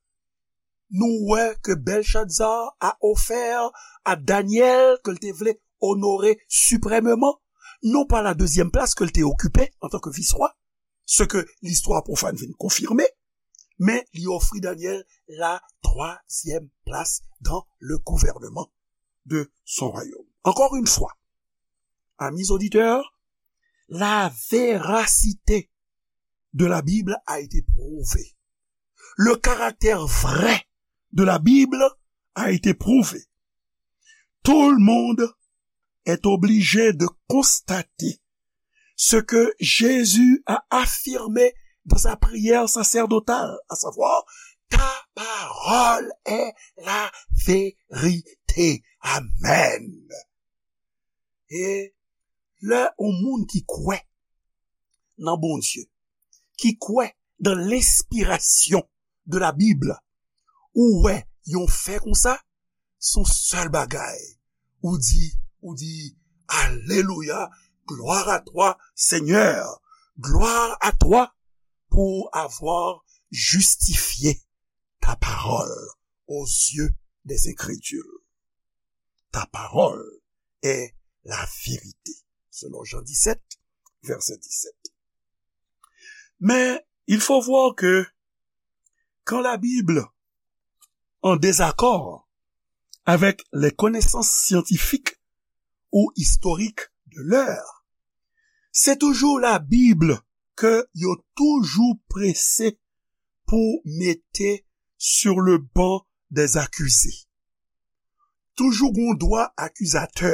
nou wè ke Bèlchadza a ofè a Danyèl, ke l te vle onore siprèmeman, non pa la dezyèm plas ke l te okipe antanke vis-wa, ce que l'histoire profane vient confirmer, men li ofri Danyèl la troisième place dans le gouvernement de son royaume. Encore une fois, amis auditeurs, la véracité de la Bible a été prouvée. Le caractère vrai de la Bible a été prouvé. Tout le monde est obligé de constater ce que Jésus a affirmé dans sa prière sacerdotale, à savoir, ta parole est la vérité. Amen. E lè yon moun ki kwè nan Bondye, ki kwè dans l'inspiration de la Bible, ou wè yon fè konsa, se yon sèl bagay, ou di, ou di, Alelouya, gloire à toi, Seigneur, gloire à toi pour avoir justifié ta parole aux yeux des incrédules. Ta parole est la vérité, selon Jean dix-sept, verset dix-sept. Mais il faut voir que quand la Bible, en désaccord avec les connaissances scientifiques ou historiques de l'heure, c'est toujours la Bible que yo toujou prese pou mete sur le banc des accusés. Toujou gon dwa akizatè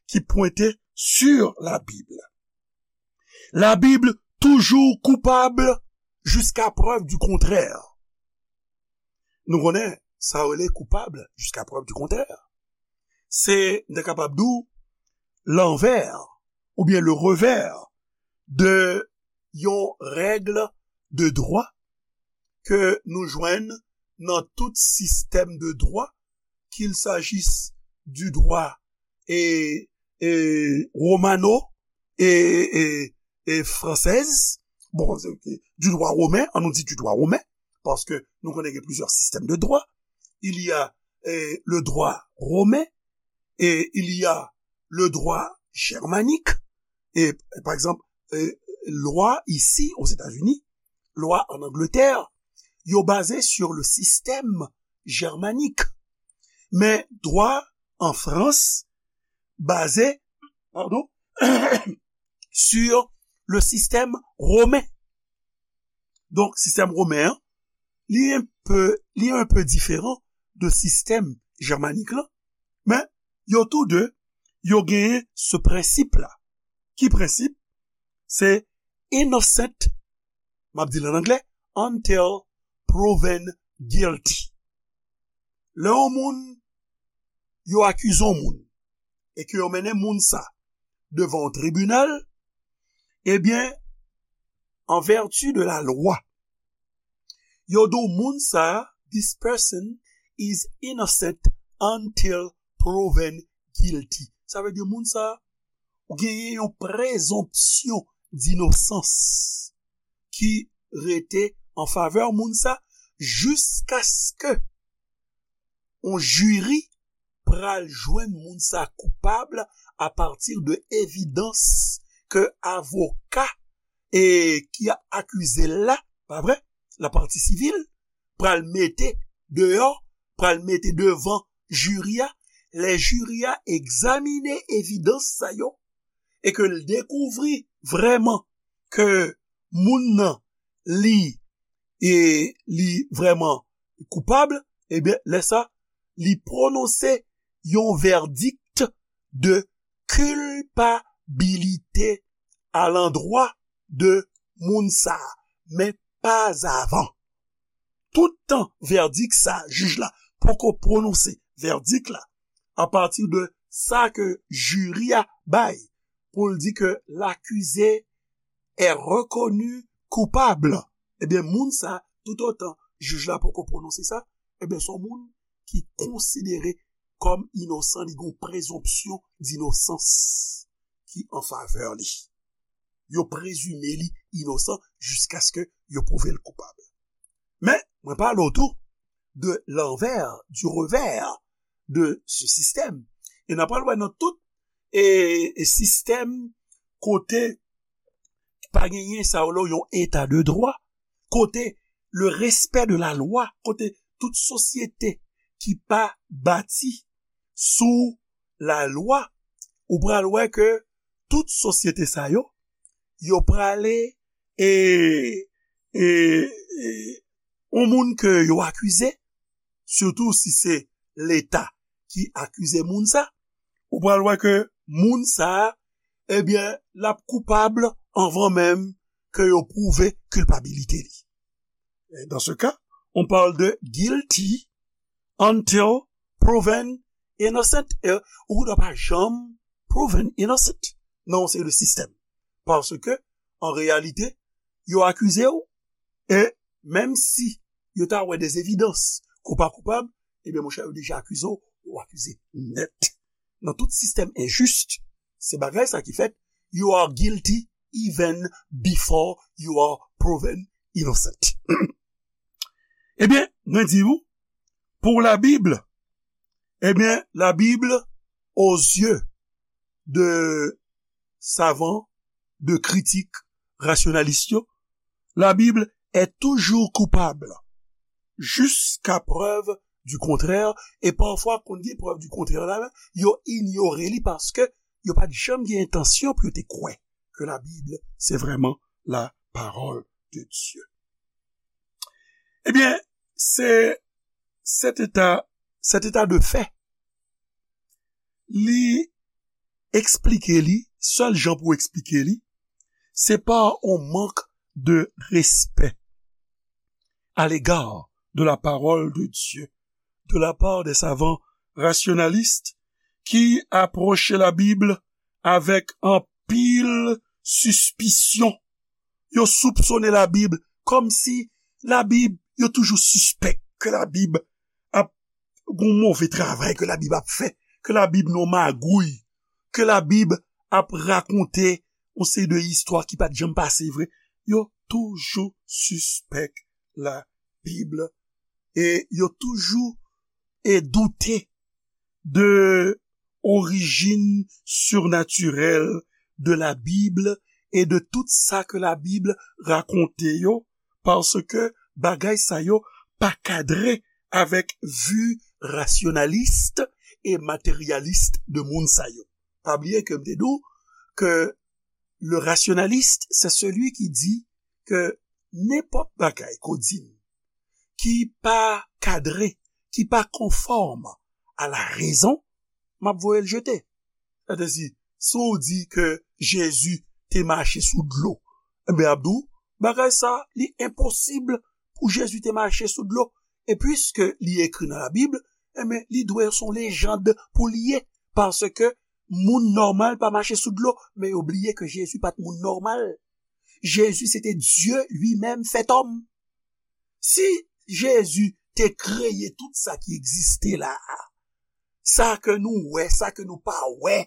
ki pwente sur la Bible. La Bible toujours coupable jusqu'à preuve du contraire. Nou konnen sa rele coupable jusqu'à preuve du contraire. Se, n te kapab di w, lanvè oubyen le revers de yon règle de droit ke nou jwenn nan tout sistèm de droit, qu'il s'agisse du droit e, e romano e, e, e française, bon, du droit romain, an nou di du droit romain, paske nou konnen gen plizyè sistèm de droit. Il y a eh, le droit romain et il y a le droit germanique. Et par exemple, eh, lwa isi, Ozetazini, lwa an Angletè, yo baze sur le système germanique. Men dwa an Frans baze, pardon, sur le système romain. Donk, sistèm women an, li enpe, li enpe diferan de sistèm jèmanik lan, men yo tou de, yo genyen se prensip la. Ki prensip? Se innocent, m ap di l an anglè, until proven guilty. Lè yon moun, yo akize yon moun, e ke yo mennen moun sa devan yon tribinal, ebyen, an vèti de la lwa, yo di w moun sa, this person is innocent until proven guilty. Sa vle di moun sa, ou genyen yon prezonpsyon dinosans ki rete an favè moun sa, jiskaske yon jiri pral jwenn moun sa koupab apati de evidans ke avoka e ki ap akize l la, pa vre, lapati sivil, pral mete deyò, pral mete devan jiri a, lè jiri a egzamine evidans sa yo e ke l dekouvri vrèman ke moun nan li e li vrèman koupab, ebyen lè sa li pwononse yon vèdik de kilpabilite alandwa de moun sa, men pa avan. Toutan vèdik sa jij la poko pwononse vèdik la apati de sa ke jiri a bay pou l di ke lakize est reconnu coupable, ebyen moun sa, toutotan jij la poko pwononse sa, ebyen se yon moun ki konsidere kòm inosan, li gen yon prezonpsyon dinosans ki an favè li. Yo prezime li inosan jiskaske yo pwouve l koupab. Men mwen pale w tou de lanvè, du revers de ce système. E n ap pral wè nan tout e, e sistèm kote pa genyen sa yo yon eta de dwa, kote le respect de la loi, kote tout sosyete ki pa bati sou la lwa, ou pral wè ke tout sosyete sa yo, yo prale e, e, e yon moun ke yo akize, sitou si se Leta ki akize moun sa, ou pral wè ke moun sa, ebyen, l ap koupab anvan menm ke yo pwouve kilpabilite li. Et dans ce cas, on parle de guilty until proven innocent. E ou dwa pa janm proven innocent nan yon seri de sistèm. Paske, an reyalite, yo akize w, e menm si yo ta wè de evidans ke w pa koupab, ebyen, monchè, yo deja akize w, ou akize nèt. Nan tout sistèm enjis, se bagay sa ki fèt, you are guilty even before you are proven innocent. Ebyen, mwen di w, pour la Bible, ebyen, la Bible, aux yeux de savan, de kritik, rasyonalis yo, la Bible est toujours coupable, jusqu'à preuve du contraire, e pafwa, konn gen prèv di kontrè la, yo inyore li paske yo pa t janm gen entansyon pou yo te kwè ke la Bible, c'est vraiment la parole de Dieu. Ebyen, se, cet état, cet état de fait, li eksplike li, sèl jan pou eksplike li, se pa yon mank de respè à l'égard de la parole de Dieu, de la part des savants rationalistes ki apwoche la Bib avèk anpil sispisyon. Yo soupsone la Bib kòmsi la Bib, yo toujou sispèk ke la Bib ap gon move travay ke la Bib ap fè, ke la Bib nan magouy, ke la Bib ap rakonte yon seri de istwa ki pa t janm pase vre. Yo toujou sispèk la Bib e yo toujou e doute de orijin sirnatirèl de la Bib e de tout sa ke la Bib rakonte yo, paske bagay sa yo pa kadre avèk vi rasyonalis e materyalis de moun sa yo. Pa bliye ke m te di w ke le rationaliste, c'est celui qui dit que nenpòt bagay ke w di m ki pa kadre, ki pa konfòm a la rezon, m ap voye l jete. Sètadi, si w di ke Jezi te mache sou dlo, enben, m ap di w, bagay sa, li enposib pou Jezi te mache sou dlo. E piske li ekri nan la Bib, enben, li dwe se yon lejand pou li ye. Paske moun nòmal pa mache sou dlo, men yo bliye ke Jezi pa t moun nòmal. Jezi se te Dye li menm fèt òm. Si Jezi te kreye tout sa ki egziste la a, sa ke nou wè, sa ke nou pa wè,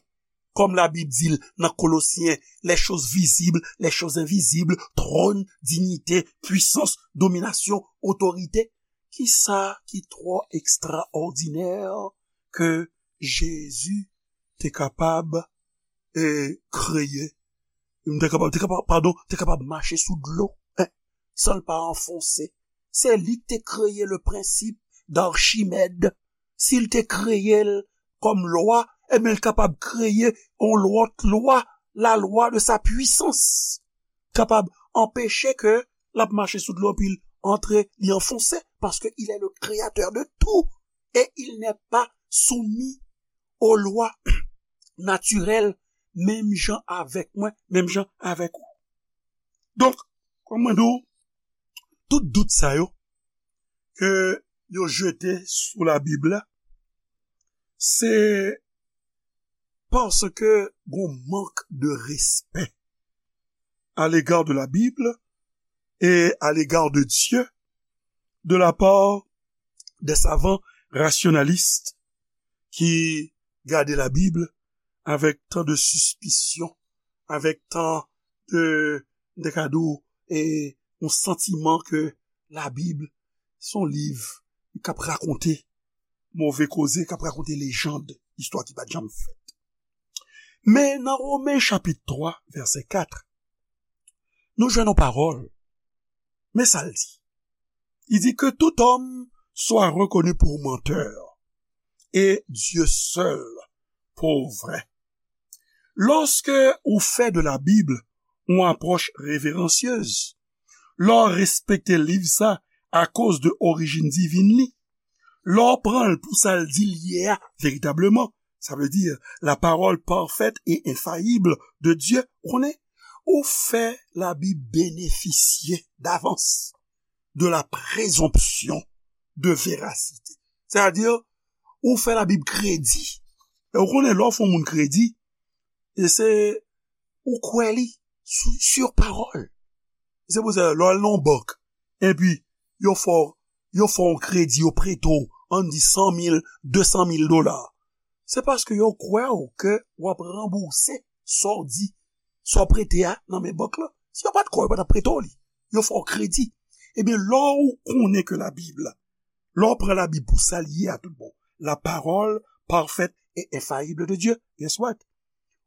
kòm Labib di l nan Kolosyen, les choses visibles, les choses invisibles, tròn, dinyite, pwisans, dominasyon, otorite. Kisa ki twò ekstraòdinè ke Jezi te kapab, e, kreye? Te kapab, te kapab, padon, te kapab mache sou dlo, en, san l pa anfonse. Se li ki te kreye le prensip d'Archimède. Si l te kreye l kòm lwa, ebyen, l kapab kreye yon lòt lwa, la loi de sa puissance. Kapab anpeche ke l ap mache sou dlo, epi l antre, li anfonse, parce que il est le créateur de tout, et il n'est pas soumis aux lois naturelles, menm jan avèk mwen, menm jan avèk ou. Donk, kòm mwen di w, tout dout sa yo ke yo jete sou Labib la, se paske gon mank de respè à l'égard de la Bible et à l'égard de Dieu de la part des savants rationalistes ki gade Labib avèk tan de sispisyon, avèk tan de, de kado, e yon santiman ke Labib se yon liv k ap rakonte move koze, k ap rakonte lejand, istwa ki pa t janm fèt. Men nan Women chapit twa, vèsè kat, nou jwenn yon pawòl. Men sa l di. Il dit que tout homme soit reconnu pour menteur et Dieu seul pour vrai. Lòske ou fè de la Bible yon apwòch reveransyez, lè w respekte liv sa akoz de orijin divin li, lè w pran l pou sa l di l ye a veritableman, sa vle di la parole parfaite et infaillible de Dieu, ou konnen, ou fè Labib benefisye davans de la présomption de véracité. Sètadi, ou fè Labib kredi. E ou konnen lè w fè yon moun kredi, e se ou kwè li sou, sur parole. Se pou sa, lè w al nan yon bank, epi yo fè w, yo fè w yon kredi, yo prete w, ann di san mil, de san mil dola. Se paske yo kwè w ke w ap ranbouse sa w di, sa w prete a nan men bank la. Si yo pa t kwè w, yo pa t ap prete w li. Yo fè w kredi. Ebyen, lè w konnen ke Labib la, lè w pran Labib pou sa l ye a tout bon, la parole parfaite et infaillible de Dieu, guess what?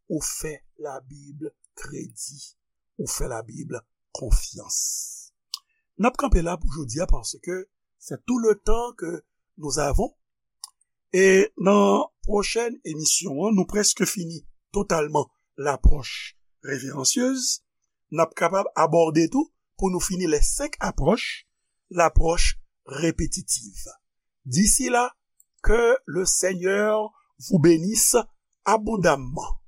Ou fè Labib kredi. Ou fè Labib konfyans. N ap kanpe la pou jodi a, paske c'est tout le temps que nous avons. E nan pwochèn emisyon an, nou prèske fini totalman lapwòch reveransyez. N ap kapab abòde tou, pou nou fini les cinq approches, l'approche répétitive. D'ici là, que le Seigneur vous bénisse abondamment.